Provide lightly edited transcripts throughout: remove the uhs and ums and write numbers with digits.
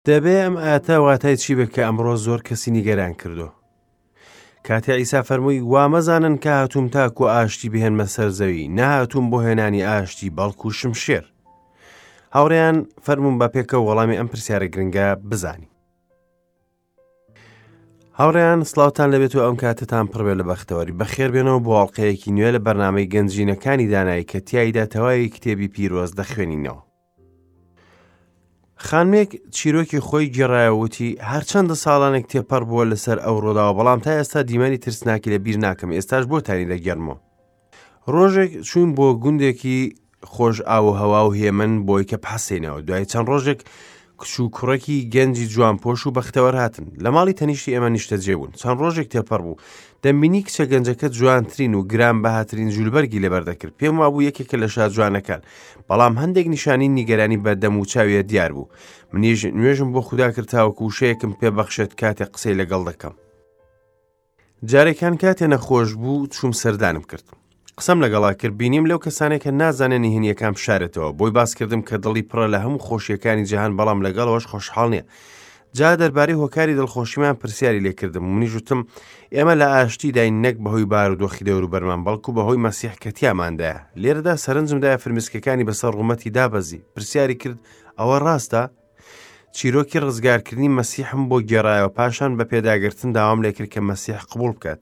دەبێ ئەم ئایەتە واتای چی بێت کە ئەمڕۆ زۆر کەسی نیگەران کردووە؟ کاتێ عیسا فەرمووی وا مەزانن کە هاتووم تاکو ئاشتی بهێنمە سەر زەوی، نەهاتووم بۆ هێنانی ئاشتی بەڵکو شمشێر. هاوڕێیان فەرموون بە پێکەوە وەڵامی ئەم پرسیارە گرنگە بزانین. هاوڕێیان سڵاوتان لەبێت و ئەم کاتتان پڕبێ لە بەختەوەری بەخێر بێنەوە بۆ ئەڵلقەیەکی نوێ لە بەرنامەی گەنجینەکانی دانایی کە تیایدا تەواوی کتێبی پیرۆز دەخوێنینەوە. خانمێک چیرۆکی خۆی گێڕایەوە وتی هەرچەندە ساڵانێک تێپەڕ بووە لەسەر ئەو ڕووداوە بەڵام تا ئێستا دیمەنی ترسناکی لە بیر ناکەم ئێستاش بۆتانی دەگێڕمەوە ڕۆژێک چوین بۆ گوندێکی خۆش ئاو و هەوا و هێمن بۆی کە بحەسێنەوە دوای چەند ڕۆژێک کچ و کوڕێکی گەنجی جوانپۆش و بەختەوەر هاتن لە ماڵی تەنیشتی ئێمە نیشتەجێ بوون چەند ڕۆژێک تێپەڕ بوو دەمبینی کچە گەنجەکە جوانترین و گران بەهاترین جولبەرگی لەبەر دەکرد پێم وابوو یەکێکە لە شاجوانەکان بەڵام هەندێک نیشانی نیگەرانی بە دەم و چاویە دیار بوو منیش نوێژم بۆ خودا کرد تاوەکو وشەیەکم پێ بەخشێت کاتێک قسەی لەگەڵ دەکەم جارێکان کاتێ نەخۆش بوو چووم سەردانم کرد قسەم لەگەڵا کرد بینیم لەو کەسانێک کە نازانێ نهێنیەکان بشارێتەوە بۆی باس کردم کە دڵی پڕە لە هەموو خۆشیەکانی جیهان بەڵام لەگەڵەوەش خۆشحاڵ نییە جا دەربارەی هۆکاری دڵخۆشیمان پرسیاری لێکردم منیش وتم ئێمە لە ئاشتیداین نەک بەهۆی بارودۆخی دەوروبەرمان بەڵکو بەهۆی مەسیح کە تیاماندایە لێرەدا سەرنجمدایە فرمسکەکانی بەسەر ڕوومەتی دابەزی پرسیاری کرد ئەوە ڕاستە چیرۆکی ڕزگارکردنی مەسیحم بۆ گێڕایەوە پاشان بە پێداگرتن داوام لێکرد کە مەسیح قبوڵ بکات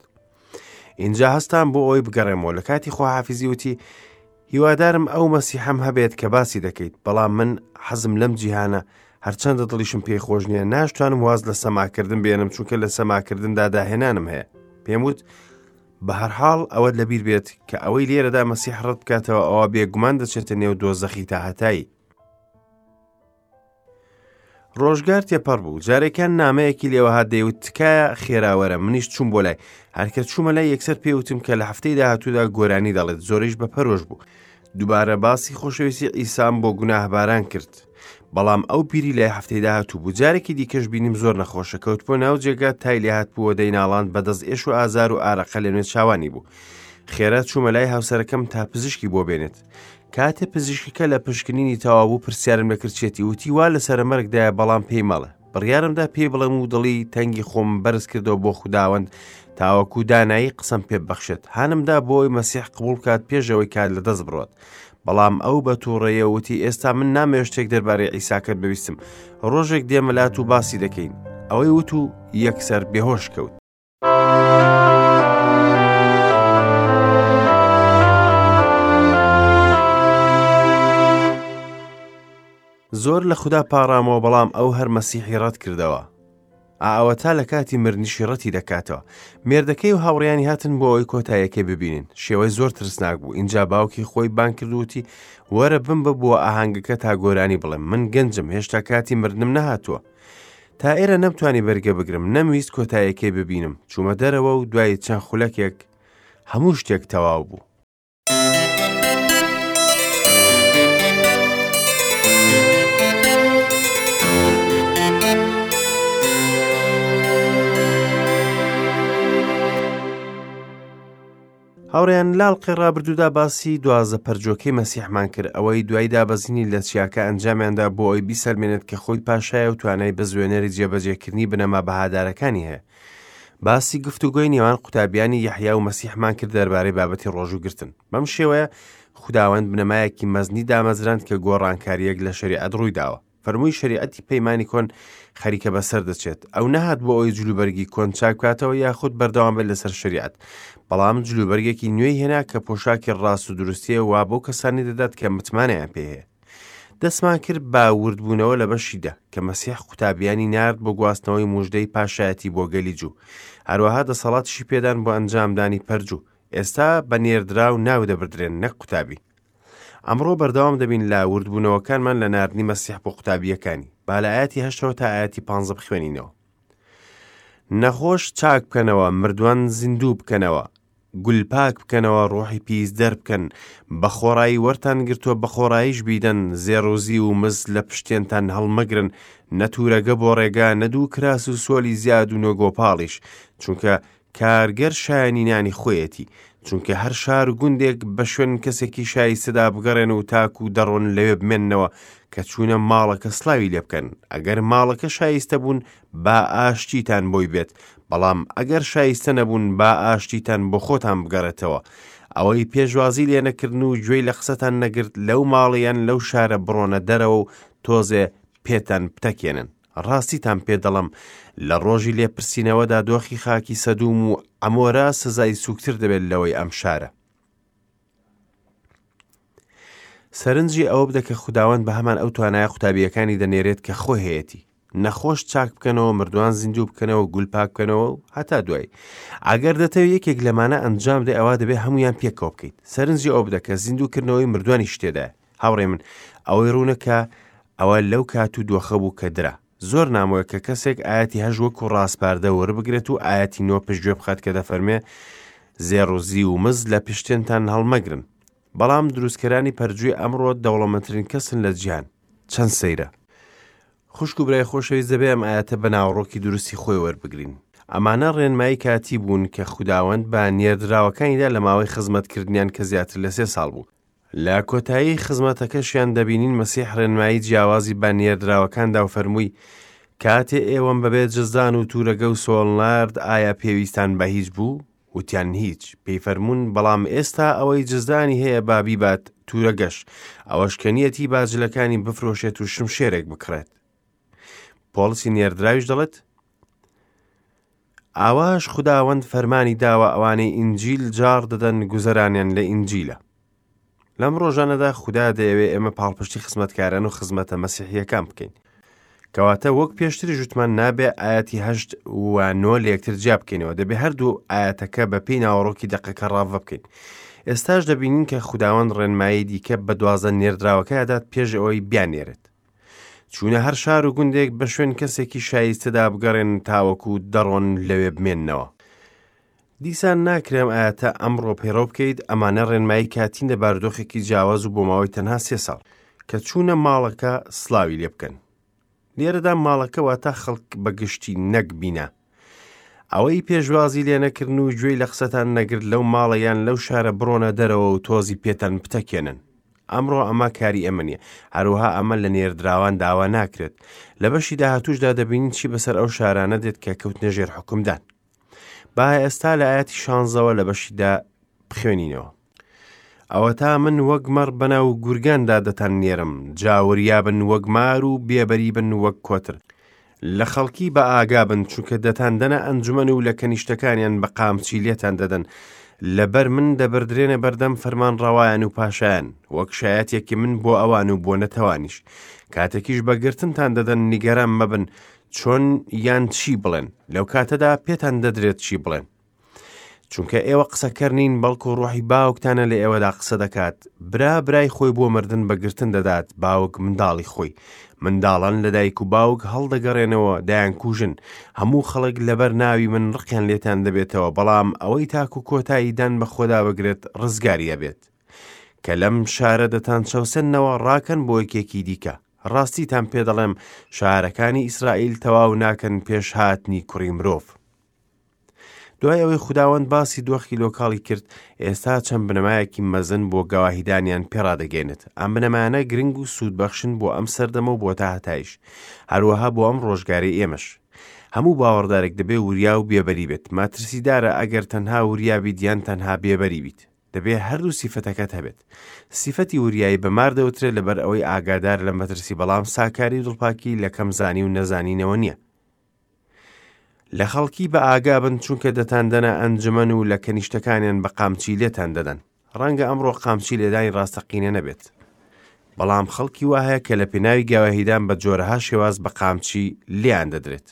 ئینجا هەستام بۆ ئەوەی بگەڕێمەوە لە کاتی خواحافیزی وتی هیوادارم ئەو مەسیحەم هەبێت کە باسی دەکەیت بەڵام من حەزم لەم جیهانە هەرچەندە دڵیشم پێی خۆش نییە ناشتوانم واز لە سەماکردن بێنم چونکە لە سەماکردندا داهێنانم هەیە پێم وت بە هەرحاڵ ئەوەت لەبیر بێت کە ئەوەی لێرەدا مەسیح ڕەت بکاتەوە ئەوە بێگومان دەچێتە نێو دۆزەخی تاهەتایی ڕۆژگار تێپەڕ بوو جارێکیان نامەیەکی لێوە هات دەیوت تکایە خێرا وەرە منیش چووم بۆ لای هەرکە چوومە لای یەکسەر پێوتم کە لە هەفتەی داهاتوودا گۆرانی دەڵێت زۆریش بە پەرۆش بوو دووبارە باسی خۆشەویستی ئیسام بۆ گوناهباران کرد بەڵام ئەو پیری لای هەفتەی داهاتوو بوو جارێکی دیکەش بینیم زۆر نەخۆشە کەوت بۆ ناو جێگا تای لێهات بووە دەیناڵاند بەدەست ئێش و ئازار و ئارەقە لە نوێ چاوانی بوو خێرا چوومە لای هاوسەرەکەم تا پزیشکی بۆ بێنێت کاتێ پزیشکەکە لە پشکنینی تەواو بوو پرسیارم لەکرد چێتی وتی وا لە سەرەمەرگدایە بەڵام پێی مەڵێ بڕیارمدا پێی بڵێم و دڵی تەنگی خۆم بەرز کردەوە بۆ خوداوەند تاوەکو دانایی قسەم پێ ببەخشێت هانمدا بۆ ئەوەی مەسیح قبوڵ بکات پێش ئەوەی کات لەدەست بڕۆت بەڵام ئەو بە تووڕەیە وتی ئێستا من نامەوێت شتێک دەربارەی عیساکەت ببیستم ڕۆژێک دێمە لات و باسی دەکەین ئەوەی وت و یەکسەر بێهۆش کەوت. زۆر لە خودا پاڕامەوە بەڵام ئەو هەر مەسیحی ڕەت کردەوە. ئاوەتا لە کاتی مردنیشی ڕەتی دەکاتەوە. مێردەکەی و هاوڕیانی هاتن بۆ ئەوەی کۆتاییەکەی ببینن. شێوەی زۆر ترسناک بوو. ئینجا باوکی خۆی بانگ کرد و وتی وەرە بمبە بۆ ئاهەنگەکە تا گۆرانی بڵێم. من گەنجم هێشتا کاتی مردنم نەهاتووە. تا ئێرە نەمتوانی بەرگە بگرم نەمویست کۆتایەکەی ببینم چوومە دەرەوە و دوای چەند خولەکێک هەموو شتێک تەواو بوو. هاوڕێیان لە ئەڵقەی ڕابردوودا باسی دوازدە پەرجۆکەی مەسیحمان کرد ئەوەی دوای دابەزینی لە چیاکە ئەنجامیاندا بۆ ئەوی بیسەلمێنێت کە خۆی پاشایە و توانای بزوێنەری جێبەجێکردنی بنەما بەهادارەکانی هەیە باسی گفتوگۆی نێوان قوتابیانی یەحیا و مەسیحمان کرد دەربارەی بابەتی ڕۆژووگرتن بەم شێوەیە خوداوەند بنەمایەکی مەزنی دامەزراند کە گۆڕانکارییەک لە شەریعەت ڕوویداوە فەرمووی شەریعەتی پەیمانی کۆن خەریکە بەسەر دەچێت ئەو نەهات بۆ ئەوەی جلوبەرگی کۆن چاک بکاتەوە یاخود بەردەوام بێت لەسەر شەریعەت بەڵام جلوبەرگێکی نوێی هێنا کە پۆشاکی ڕاست و دروستیە وا بۆ کەسانی دەدات کە متمانەیان پێ هەیە دەستمان کرد بە وردبوونەوە لە بەشیدا کە مەسیح قوتابیانی نارد بۆ گواستنەوەی موژدەی پاشایەتی بۆ گەلی جوو هەروەها دەسەڵاتیشی پێدان بۆ ئەنجامدانی پەرجوو ئێستا بە نێردراو ناو دەبردرێن نەک قوتابی ئەمڕۆ بەردەوام دەبین لە وردبوونەوەکانمان لە ناردنی مەسیح بۆ قوتابییەکانی. با لە ئایەتی هەشتەوە تا ئایەتی پانزە بخوێنینەوە. نەخۆش چاک بکەنەوە، مردووان زیندوو بکەنەوە، گول پاک بکەنەوە، ڕۆحی پیس دەربکەن، بە خۆڕایی وەرتان گرتووە بە خۆڕاییش بیدەن، زێڕ و زیو و مس لە پشتێنتان هەڵمەگرن، نە توورەگە بۆ ڕێگا، نە دوو کراس و سۆلی زیاد و نە گۆپاڵیش، چونکە کارگەر شایەنی نانی خۆیەتی. چونکە هەر شار و گوندێک بە شوێن کەسێکی شایستەدا بگەڕێن و تاکو دەڕۆن لەوێ بمێننەوە کە چوونە ماڵەکە سڵاوی لێ بکەن ئەگەر ماڵەکە شایستە بوون با ئاشتیتان بۆی بێت بەڵام ئەگەر شایستە نەبوون با ئاشتیتان بۆ خۆتان بگەڕێتەوە ئەوەی پێشوازی لێ نەکردن و گوێی لە قسەتان نەگرت لەو ماڵە یان لەو شارە بڕۆنە دەرەوە و تۆزێ پێتان بتەکێنن ڕاستیتان پێ دەڵێم لە ڕۆژی لێپرسینەوەدا دۆخی خاکی سەدوم و عەمۆرا سزای سوکتر دەبێت لەوەی ئەم شارە. سەرنجی ئەوە بدە کە خوداوەند بە هەمان ئەو توانایە قوتابییەکانی دەنێرێت کە خۆی هەیەتی. نەخۆش چاک بکەنەوە، مردووان زیندوو بکەنەوە، گول پاک بکەنەوە و هەتا دوایی. ئەگەر دەتەوێت یەکێک لەمانە ئەنجام بدەیت ئەوا دەبێت هەموویان پێکەوە بکەیت. سەرنجی ئەوە بدە کە زیندووکردنەوەی مردووانیش تێدایە. هاوڕێی من، ئەوەی ڕوونە کە ئەوە لەو کات و دۆخە بوو کە درا. زۆر نامۆیە کە کەسێک ئایەتی هەشت وەکو ڕاسپاردە وەربگرێت و ئایەتی نۆ پشتگوێ بخات کە دەفەرمێ زێڕ و زیو و مز لە پشتێنتان هەڵمەگرن. بەڵام دروستکەرانی پەرجووی ئەمڕۆ دەوڵەمەندترین کەسن لە جیهان. چەند سەیرە! خوشک و برای خۆشەویست دەبێ ئەم ئایەتە بە ناوەڕۆکی دروستی خۆی وەربگرین. ئەمانە ڕێنمایی کاتی بوون کە خوداوەند بە نێردراوەکانی دا لە ماوەی خزمەتکردنیان کە زیاتر لە سێ ساڵ بوو. لە کۆتایی خزمەتەکەشیان دەبینین مەسیح ڕێنمایی جیاوازی بە نێردراوەکان دا و فەرمووی، کاتێ ئێوەم بەبێ جزدان و تورەگە و سۆڵ نارد ئایا پێویستان بە هیچ بوو؟ وتیان هیچ. پێی فەرموون، بەڵام ئێستا ئەوەی جزدانی هەیە با بیبات، تورەگەش، ئەوەش کە نیەتی با جلەکانی بفرۆشێت و شمشێرێک بکڕێت. پۆڵسی نێردراویش دەڵێت، ئاواش خوداوەند فەرمانی داوە ئەوانەی ئینجیل جاڕ دەدەن گوزەرانیان لە ئینجیلە. لەم ڕۆژانەدا خودا دەیەوێ ئێمە پاڵپشتی خزمەتکاران و خزمەتە مەسیحیەکان بکەین. کەواتە وەک پێشتری ژوتمان نابێ ئاەتی هەشت و نۆ لە یەکتر جیا بکەینەوە دەبێ هەردوو ئاەتەکە بە پێی ناوەڕۆکی دەقەکە ڕاڤە بکەین. ئێستاش دەبینین کە خوداوەند ڕێنمایی دیکە بە دوازدە نێردراوەکە دات پێش ئەوەی بیاننێرێت. چوونە هەر شار و گوندێک بە شوێن کەسێکی شایستەدا بگەڕێن تاوەکو دەڕۆن لەوێ بمێننەوە. دیسان ناکرێ ئەم ئایەتە ئەمڕۆ پەیڕەو بکەیت، ئەمانە ڕێنمایی کاتین لە بارودۆخێکی جیاواز و بۆ ماوەی تەنها سێ ساڵ. کە چوونە ماڵەکە سڵاوی لێ بکەن. لێرەدا ماڵەکە واتە خەڵک بە گشتی نەک بینا. ئەوەی پێشوازی لێ نەکردن و گوێی لە قسەتان نەگرت لەو ماڵە یان لەو شارە بڕۆنە دەرەوە و تۆزی پێتان بتەکێنن. ئەمڕۆ ئەمە کاری ئێمە نییە، هەروەها ئەمە لە نێردراوان داوا ناکرێت. لە بەشی داهاتووشدا دەبینین چی بەسەر ئەو شارانە دێت کە کەوتنە ژێر حوکمدان. با ئێستا لە ئاەتی شانزەوە لە بەشیدا بخوێنینەوە. ئەوەتا من وەک مەڕ بەناو گورگاندا دەتان نێرم، جا وریا بن وەک مار و بێبەری بن وەک کۆتر. لە خەڵکی بە ئاگا بن، چونکە دەتاندەنە ئەنجومەن و لە کەنیشتەکانیان بە قامچی لێتان دەدەن، لەبەر من دەبردرێنە بەردەم فەرمانڕەوایان و پاشایان، وەک شایەتێکی من بۆ ئەوان و بۆ نەتەوانیش. کاتێکیش بە گرتنتان دەدەن نیگەران مەبن چۆن یان چی بڵێن، لەو کاتەدا پێتان دەدرێت چی بڵێن. چونکە ئێوە قسەکەر نین بەڵکو ڕۆحی باوکتانە لە ئێوەدا قسە دەکات برا برای خۆی بۆ مردن بەگرتن دەدات باوک منداڵی خۆی منداڵان لە دایک و باوک هەڵدەگەڕێنەوە دەیانکوژن هەموو خەڵک لەبەر ناوی من ڕقیان لێتان دەبێتەوە بەڵام ئەوەی تاکو کۆتایی دان بە خۆدا بگرێت ڕزگاری ئەبێت کە لەم شارە دەتان چەوسێننەوە ڕاکەن بۆ یەکێکی دیکە ڕاستیتان پێ دەڵێم شارەکانی ئیسرائیل تەواو ناکەن پێش هاتنی کوڕی مرۆڤ دوای ئەوەی خوداوەند باسی دۆخی لۆکاڵی کرد، ئێستا چەند بنەمایەکی مەزن بۆ گەواهیدانیان پێڕادەگەێنێت. ئەم بنەمایانە گرنگ و سوودبەخشن بۆ ئەم سەردەمە و بۆ تاهەتایش، هەروەها بۆ ئەم ڕۆژگارەی ئێمەش. هەموو باوەڕدارێک دەبێ وریا و بێبەری بێت. مەترسیدارە ئەگەر تەنها وریا بیت یان تەنها بێبەری بیت. دەبێ هەردوو سیفەتەکەت هەبێت. سیفەتی وریایی بە مار دەوترێت لەبەر ئەوەی ئاگادارە لە مەترسی بەڵام ساکاری و دڵپاکی لە کەمزانی و نەزانینەوە نییە. لە خەڵکی بە ئاگا بن چونکە دەتاندەنە ئەنجومەن و لە کەنیشتەکانیان بە قامچی لێتان دەدەن. ڕەنگە ئەمڕۆ قامچی لێدانی ڕاستەقینە نەبێت. بەڵام خەڵکی وا هەیە کە لە پێناوی گەواهیدان بە جۆرەها شێواز بە قامچی لێیان دەدرێت.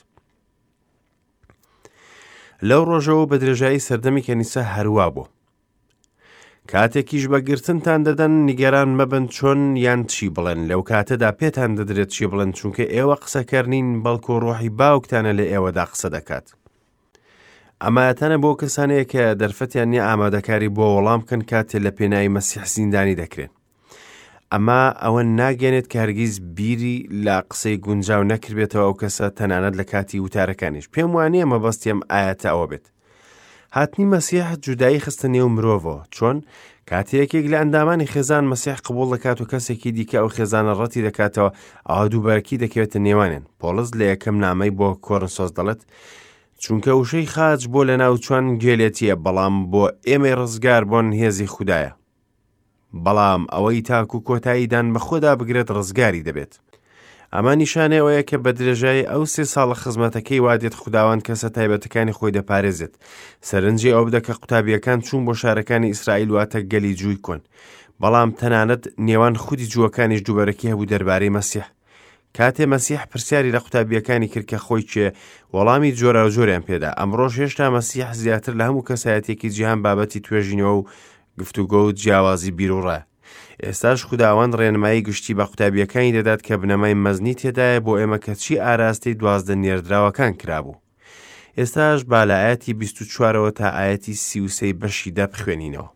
لەو ڕۆژەوە بە درێژایی سەردەمی کەنیسە هەروا بوو. کاتێکیش بە گرتنتان دەدەن نیگەران مەبن چۆن یان چی بڵێن لەو کاتەدا پێتان دەدرێت چی بڵێن چونکە ئێوە قسەکەر نین بەڵکو ڕۆحی باوکتانە لە ئێوەدا قسە دەکات ئەمایەتانە بۆ کەسانەیە کە دەرفەتیان نییە ئامادەکاری بۆ وەڵام بکەن کاتێ لە پێناوی مەسیح زیندانی دەکرێن ئەمە ئەوە ناگەێنێت کە هەرگیز بیری لە قسەی گونجاو نەکردبێتەوە ئەو کەسە تەنانەت لە کاتی وتارەکانیش پێم وانە مەبەستیم ئاەتە ئەوە بێت. هاتنی مەسیح جودایی خستە نێو مرۆڤەوە. چۆن؟ کاتێ یەکێک لە ئەندامانی خێزان مەسیح قبوڵ دەکات و کەسێکی دیکە ئەو خێزانە ڕەتی دەکاتەوە، ئەوا دووبەرەکی دەکەوێتە نێوانیان. پۆڵس لە یەکەم نامەی بۆ کۆرنسۆس دەڵێت، چونکە وشەی خاچ بۆ لەناوچوان گێلێتییە، بەڵام بۆ ئێمەی ڕزگاربوون هێزی خودایە. بەڵام ئەوەی تاکو کۆتایی دان بەخۆدا بگرێت ڕزگاری دەبێت. ئەمە نیشانەی ئەوەیە کە بە درێژایی ئەو سێ ساڵە خزمەتەکەی وا دێت خوداوەند کەسە تایبەتەکانی خۆی دەپارێزێت. سەرنجی ئەوە بدە کە قوتابییەکان چوون بۆ شارەکانی ئیسرائیل واتە گەلی جووی کۆن. بەڵام تەنانەت نێوان خودی جووەکانیش دووبەرەکی هەبوو دەربارەی مەسیح. کاتێ مەسیح پرسیاری لە قوتابییەکانی کرد کە خۆی کێ، وەڵامی جۆراوجۆریان پێدا. ئەمڕۆش هێشتا مەسیح زیاتر لە هەموو کەسایەتییەکی جیهان بابەتی توێژینەوە و گفتوگۆ و جیاوازی بیروڕایە. ئێستاش خوداوەند ڕێنمایی گشتی بە قوتابییەکانی دەدات کە بنەمای مەزنی تێدایە بۆ ئێمە کە چی ئاراستەی 12 نێردراوەکان کرابوو. ئێستاش با لە ئایەتی 24ەوە تا ئایەتی 33 بەشی دە بخوێنینەوە.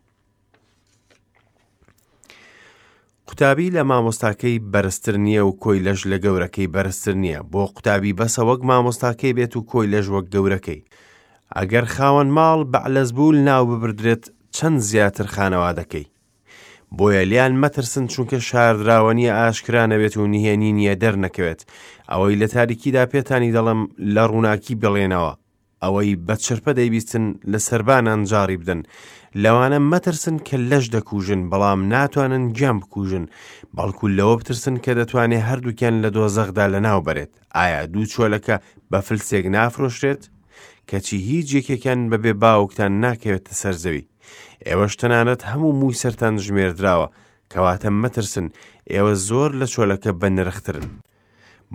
قوتابی لە مامۆستاکەی بەرزتر نییە و کۆیلەش لە گەورەکەی بەرزتر نییە، بۆ قوتابی بەسە وەک مامۆستاکەی بێت و کۆیلەش وەک گەورەکەی. ئەگەر خاوەن ماڵ بەعلەزبول ناو ببردرێت چەند زیاتر خانەوادەکەی. بۆیە لێیان مەترسن چونکە شاردراوە نییە ئاشکرا نەبێت و نهێنی نییە دەرنەکەوێت. ئەوەی لە تاریکیدا پێتانی دەڵێم لە ڕووناکی بڵێنەوە، ئەوەی بە چرپە دەیبیستن لە سەربانان جاڕی بدەن. لەوانە مەترسن کە لەش دەکوژن بەڵام ناتوانن گیان بکوژن، بەڵکو لەوە بترسن کە دەتوانێ هەردووکیان لە دۆزەخدا لەناو بەرێت. ئایا دوو چۆلەکە بە فلسێک نافرۆشرێت؟ کەچی هیچ یەکێکیان بەبێ باوکتان ناکەوێتە سەر زەوی. ئێوەش تەنانەت هەموو مووی سەرتان ژمێردراوە، کەواتە مەترسن، ئێوە زۆر لە چۆلەکە بەنرخترن.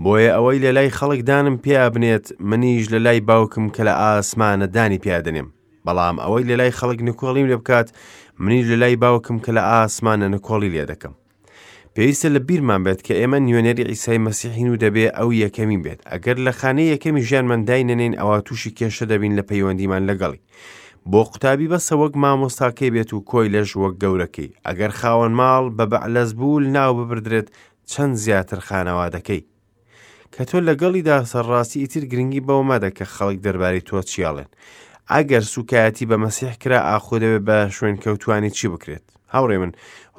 بۆیە ئەوەی لە لای خەڵک دانم پیا بنێت، منیش لە لای باوکم کە لە ئاسمانە دانی پیا دەنێم. بەڵام ئەوەی لە لای خەڵک نکۆڵیم لێ بکات، منیش لە لای باوکم کە لە ئاسمانە نکۆڵی لێ دەکەم. پێویستە لە بیرمان بێت کە ئێمە نوێنەری عیسای مەسیحین و دەبێ ئەو یەکەمین بێت. ئەگەر لە خانەی یەکەمی ژیانمان داینەنێین ئەوا تووشی کێشە دەبین لە پەیوەندیمان لەگەڵی. بۆ قوتابی بەسە وەک مامۆستاکەی بێت و کۆیلەش وەک گەورەکەی. ئەگەر خاوەن ماڵ بە بەعلەزبول ناو ببردرێت چەند زیاتر خانەوادەکەی. کە تۆ لەگەڵیدا سەرڕاستی ئیتر گرنگی بەوە مەدە کە خەڵک دەربارەی تۆ چی ئەڵێن. ئەگەر سوکایەتی بە مەسیح کرا ئاخۆ دەبێت بە شوێنکەوتوانی چی بکرێت؟ هاوڕێ من،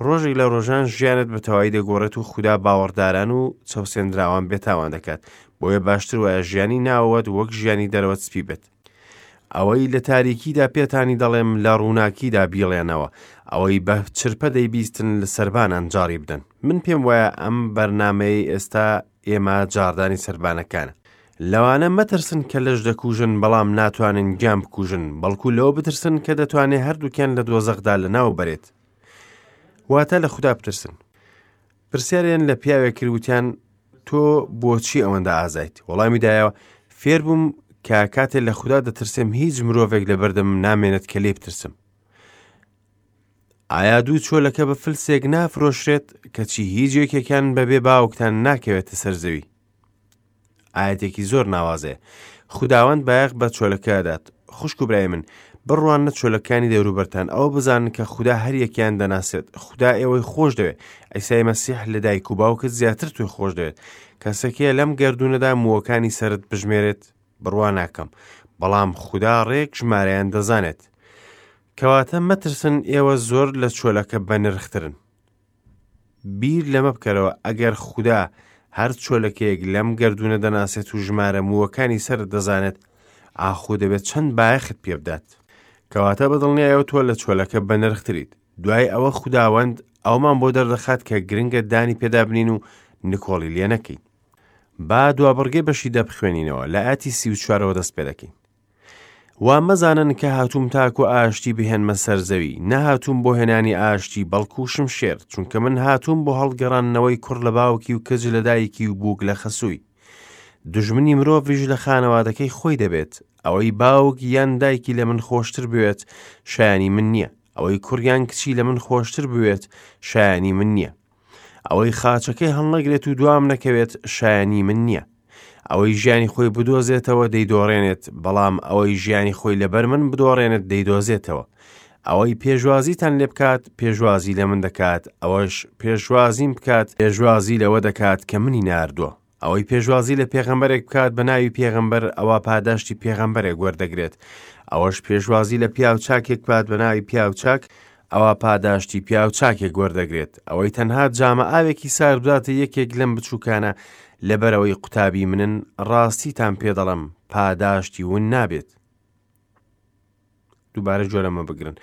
ڕۆژێک لە ڕۆژان ژیانت بە تەواوی دەگۆڕێت و خودا باوەڕداران و چەوسێندراوان بێتاوان دەکات. بۆیە باشتر وایە ژیانی ناوەوەت وەک ژیانی دەرەوەت سپی بێت. ئەوەی لە تاریکیدا پێتانی دەڵێم لە ڕووناکیدا بیڵێنەوە، ئەوەی بە چرپە دەیبیستن لە سەربانان جاڕی بدەن. من پێم وایە ئەم بەرنامەیەی ئێستا ئێمە جاڕدانی سەربانەکانە. لەوانە مەترسن کە لەش دەکوژن بەڵام ناتوانن گیان بکوژن، بەڵکو لەوە بترسن کە دەتوانێ هەردووکیان لە دۆزەخدا لەناو بەرێت. واتە لە خودا بترسن. پرسیاریان لە پیاوێک کرد وتیان تۆ بۆچی ئەوەندە ئازایت؟ وەڵامی دایەوە فێربووم کە کاتێ لە خودا دەترسم هیچ مرۆڤێک لە بەردەمم نامێنێت کە لێ بترسم. ئایا دوو چۆلەکە بە فلسێک نافرۆشرێت کەچی هیچ یەکێکیان بەبێ باوکتان ناکەوێتە سەر زەوی؟ ئایەتێکی زۆر ناوازەیە. خوداوەند بایەخ بە چۆلەکە دەدات. خوشک و برای من، بڕواننە چۆلەکانی دەوروبەرتان، ئەوە بزانن کە خودا هەر یەکیان دەناسێت. خودا ئێوەی خۆش دەوێت. عیسای مەسیح لە دایک و باوکت زیاتر تۆی خۆش دەوێت. کەسێک هەیە لەم گەردوونەدا مووەکانی سەرت بژمێرێت؟ بڕوا ناکەم. بەڵام خودا ڕێک ژمارەیان دەزانێت. کەواتە مەترسن ئێوە زۆر لە چۆلەکە بەنرخترن. بیر لەمە بکەرەوە ئەگەر خودا هەر چۆلەکەیەک لەم گەردوونە دەناسێت و ژمارە مووەکانی سەرت دەزانێت ئاخۆ دەبێت چەند بایەخت پێ بدات کەواتە بە دڵنیایەوە تۆ لە چۆلەکە بەنرختریت دوای ئەوە خوداوەند ئەومان بۆ دەردەخات کە گرنگە دانی پێدا بنین و نکۆڵی لێ نەکەین با دوابڕگەی بەشی دە بخوێنینەوە لە ئاتی 34ەوە دەست پێ دەکەین وا مەزانن کە هاتووم تاکو ئاشتی بهێنمە سەر زەوی، نەهاتووم بۆ هێنانی ئاشتی بەڵکو شمشێر، چونکە من هاتووم بۆ هەڵگەڕاندنەوەی کوڕ لە باوکی و کچ لە دایکی و بووک لە خەسووی. دوژمنی مرۆڤیش لە خانەوادەکەی خۆی دەبێت، ئەوەی باوک یان دایکی لە من خۆشتر بوێت شایانی من نییە، ئەوەی کوڕ یان کچی لە من خۆشتر بوێت شایانی من نییە. ئەوەی خاچەکەی هەڵنەگرێت و دوام نەکەوێت شایانی من نییە. ئەوەی ژیانی خۆی بدۆزێتەوە دەیدۆڕێنێت، بەڵام ئەوەی ژیانی خۆی لەبەر من بدۆڕێنێت دەیدۆزێتەوە. ئەوەی پێشوازیتان لێ بکات پێشوازی لە من دەکات، ئەوەش پێشوازیم بکات پێشوازی لەوە دەکات کە منی ناردووە. ئەوەی پێشوازی لە پێغەمبەرێک بکات بە ناوی پێغەمبەر ئەوا پاداشتی پێغەمبەرێک وەردەگرێت. ئەوەش پێشوازی لە پیاو چاکێک بکات بە ناوی پیاو چاک ئەوا پاداشتی پیاو چاکێک وەردەگرێت. ئەوەی تەنها جامە ئاوێکی سارد بداتە یەکێک لەم بچووکانە لەبەرئەوەی قوتابی منن، ڕاستیتان پێ دەڵێم پاداشتی ون نابێت. دووبارە گوێ لەمە بگرن.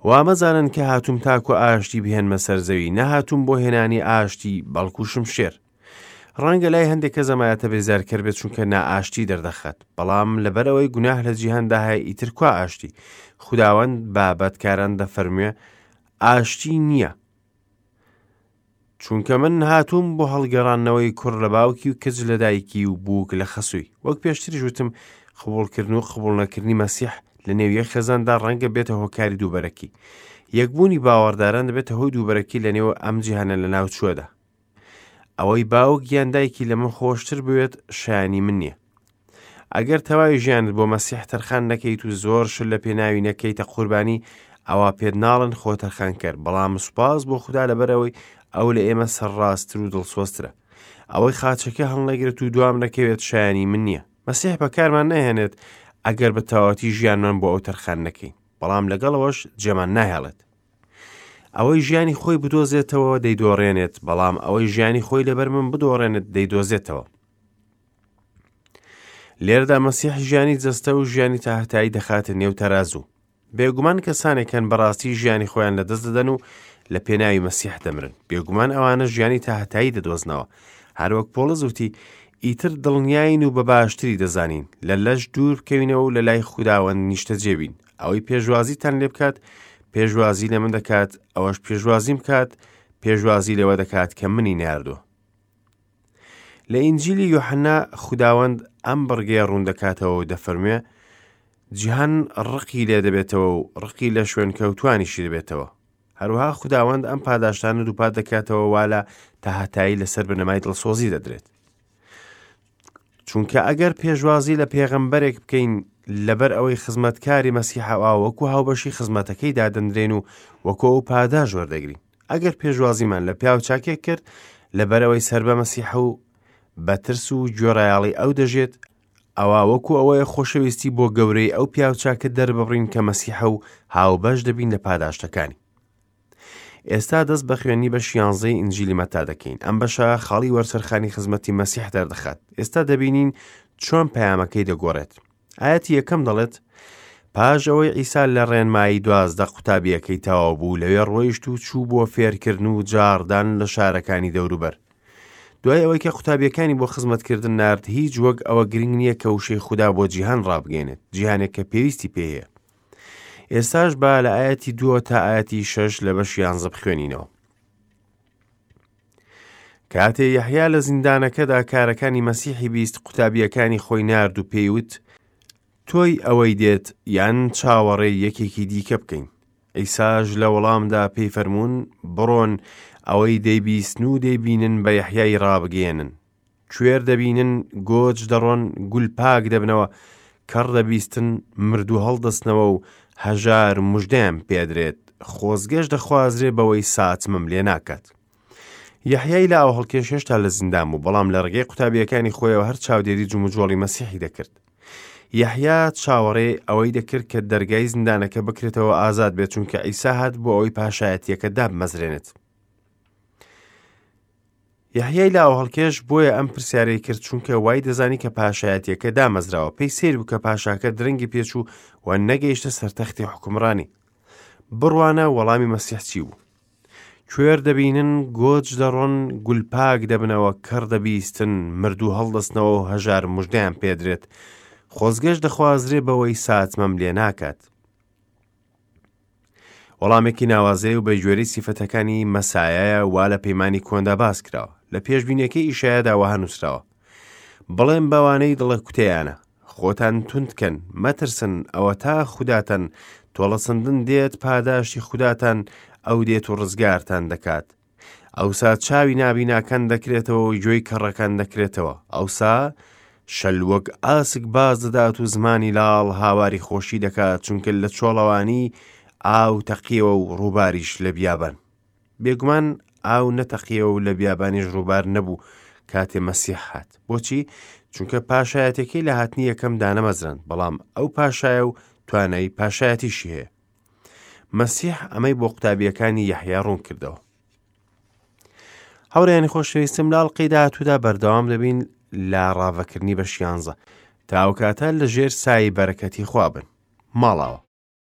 وا مەزانن کە هاتووم تاکو ئاشتی بهێنمە سەر زەوی، نەهاتووم بۆ هێنانی ئاشتی، بەڵکو شمشێر. ڕەنگە لای هەندێک کەس ئەم ئایەتە بێزارکەر بێت چونکە نائاشتی دەردەخات، بەڵام لەبەرئەوەی گوناه لە جیهاندا هەیە ئیتر کوا ئاشتی؟ خوداوەند بە بەدکاران دەفەرموێ ئاشتی نییە. چونکە من هاتووم بۆ هەڵگەڕاندنەوەی کوڕ لە باوکی و کچ لە دایکی و بووک لە خەسووی. وەک پێشتریش وتم قبوڵکردن و قبوڵنەکردنی مەسیح لە نێو یەک خێزاندا ڕەنگە بێتە هۆکاری دووبەرەکی. یەکبوونی باوەڕداران دەبێتە هۆی دووبەرەکی لە نێو ئەم جیهانە لەناوچووەدا. ئەوەی باوک یان دایکی لە من خۆشتر بوێت شایانی من نییە. ئەگەر تەواوی ژیانت بۆ مەسیح تەرخان نەکەیت و زۆر شت لە پێناوی نەکەیتە قوربانی ئەوا پێت ناڵن خۆ تەرخانکەر بەڵام سوپاس بۆ خودا لەبەرئەوەی ئەو لە ئێمە سەرڕاستتر و دڵسۆزترە ئەوەی خاچەکە هەڵنەگرێت و دوام نەکەوێت شایانی من نییە مەسیح بەکارمان ناهێنێت ئەگەر بە تەواوەتی ژیانمان بۆ ئەو تەرخان نەکەین بەڵام لەگەڵەوەش جێمان ناهێڵێت ئەوەی ژیانی خۆی بدۆزێتەوە دەیدۆڕێنێت بەڵام ئەوەی ژیانی خۆی لەبەر من بدۆڕێنێت دەیدۆزێتەوە لێرەدا مەسیح ژیانی جەستە و ژیانی تاهتایی دەخاتە نێو تەرازوو. بێگومان کەسانێک هەن بەڕاستی ژیانی خۆیان لەدەست دەدەن و لە پێناوی مەسیح دەمرن. بێگومان ئەوانە ژیانی تاهتایی دەدۆزنەوە. هەروەک پۆڵس وتی، ئیتر دڵنیاین و بە باشتری دەزانین لە لەش دوور بکەوینەوە و لە لای خوداوەند نیشتەجێ بین. ئەوەی پێشوازیتان لێ بکات، پێشوازی لە من دەکات، ئەوەش پێشوازیم بکات، پێشوازی لەوە دەکات کە منی ناردووە. لە ئینجیلی یۆحەنا خوداوەند ئەم بڕگەیە ڕوون دەکاتەوە و دەفەرموێ جیهان ڕقی لێ دەبێتەوە و ڕقی لە شوێنکەوتوانیشی دەبێتەوە. هەروەها خوداوەند ئەم پاداشتانە دووپات دەکاتەوە وا لە تاهەتایی لەسەر بنەمای دڵسۆزی دەدرێت. چونکە ئەگەر پێشوازی لە پێغەمبەرێک بکەین لەبەر ئەوەی خزمەتکاری مەسیحە ئەوا وەکو هاوبەشی خزمەتەکەی دادەنرێن و وەکو ئەو پاداش وەردەگرین. ئەگەر پێشوازیمان لە پیاو چاکێک کرد لەبەرئەوەی سەر بە مەسیحە و بە ترس و گوێڕایەڵی ئەو دەژێت، ئەوا وەکو ئەوەیە خۆشەویستی بۆ گەورەی ئەو پیاو چاکە دەرببڕین کە مەسیحە و هاوبەش دەبین لە پاداشتەکانی. ئێستا دەست بە خوێندنی بەشی یانزەی ئینجیلی مەتا دەکەین. ئەم بەشە خاڵی وەرچەرخانی خزمەتی مەسیح دەردەخات. ئێستا دەبینین چۆن پەیامەکەی دەگۆڕێت. ئایەتی یەکەم دەڵێت، پاش ئەوەی عیسا لە ڕێنمایی 12 قوتابییەکەی تەواو بوو، لەوێ ڕۆیشت و چوو بۆ فێرکردن و جاڕدان لە شارەکانی دەوروبەر. دوای ئەوەی کە قوتابیەکانی بۆ خزمەتکردن نارد، هیچ وەک ئەوە گرنگ نییە کە وشەی خودا بۆ جیهان ڕابگەیەنێت، جیهانێک کە پێویستی پێی هەیە. ئێستاش با لە ئایەتی دووە تا ئایەتی شەش لە بەشی یانزە بخوێنینەوە. کاتێ یەحیا لە زیندانەکەدا کارەکانی مەسیحی بیست قوتابییەکانی خۆی نارد و پێی وت، تۆی ئەوەی دێت یان چاوەڕێی یەکێکی دیکە بکەین؟ عیساش لە وەڵامدا پێی فەرموون، بڕۆن ئەوەی دەیبیستن و دەیبینن بە یەحیای ڕابگەیەنن. کوێر دەبینن، گۆج دەڕۆن، گول پاک دەبنەوە، کەڕ دەبیستن، مردوو هەڵدەستنەوە و هەژار مژدەیان پێدرێت، خۆزگەش دەخوازرێ بەوەی ساتمم لێ ناکات. یەحیای لاوهەڵکێش هێشتا لە زیندان بوو، بەڵام لە ڕێگەی قوتابییەکانی خۆیەوە هەر چاودێری جموجۆڵی مەسیحی دەکرد. یەحیا چاوەڕێی ئەوەی دەکرد کە دەرگای زیندانەکە بکرێتەوە ئازاد بێت، چونکە عیسا هات بۆ ئەوەی پاشایەتییەکە دابمەزرێنێت. یەحیای لاوهەڵکێش بۆیە ئەم پرسیارەی کرد چونکە وای دەزانی کە پاشایەتیەکە دامەزراوە پێی سەیر بوو کە پاشاکە درەنگی پێچوو و نەگەیشتە سەر تەختی حوکمڕانی بڕوانە وەڵامی مەسیح چی بوو کوێر دەبینن گۆج دەڕۆن گولپاک دەبنەوە کەڕ دەبیستن مردوو هەڵدەستنەوە و هەژار مژدەیان پێدرێت خۆزگەش دەخوازرێ بەوەی ساتمەم لێ ناکات وەڵامێکی ناوازەیە و بە گوێرەی سیفەتەکانی مەسایایە وا لە پەیمانی کۆندا باس کراوە. لە پێشبینیەکەی ئیشایادا وەها نووسراوە، بڵێن بەوانەی دڵە کوتەیانە، خۆتان توند کەن، مەترسن، ئەوەتا خوداتان تۆڵەسەندن دێت، پاداشتی خوداتان ئەو دێت و ڕزگارتان دەکات. ئەوسا چاوی نابیناکان دەکرێتەوە و گوێی کەڕەکان دەکرێتەوە. ئەوسا شەل وەک ئاسک باز دەدات و زمانی لاڵ هاواری خۆشی دەکات، چونکە لە چۆڵەوانی ئاو تەقیەوە و ڕووباریش لە بیابان. بێگومان ئاو نەتەقیەوە و لە بیابانیش ڕووبار نەبوو. کاتێ مەسیح هات. بۆچی؟ چونکە پاشایەتەکەی لە هاتنی یەکەم دانەمەزراند، بەڵام ئەو پاشایە و توانای پاشایەتیشی هەیە. مەسیح ئەمەی بۆ قوتابیەکانی یەحیا ڕوون کردەوە. هاوڕێیانی خۆشەویستم لە ئەڵقەی داهاتوودا بەردەوام دەبین لە ڕاڤەکردنی بەش یانزە. تا ئەو کاتە لە ژێر سایەی بەرەکەتی خوا بن. ماڵاوە.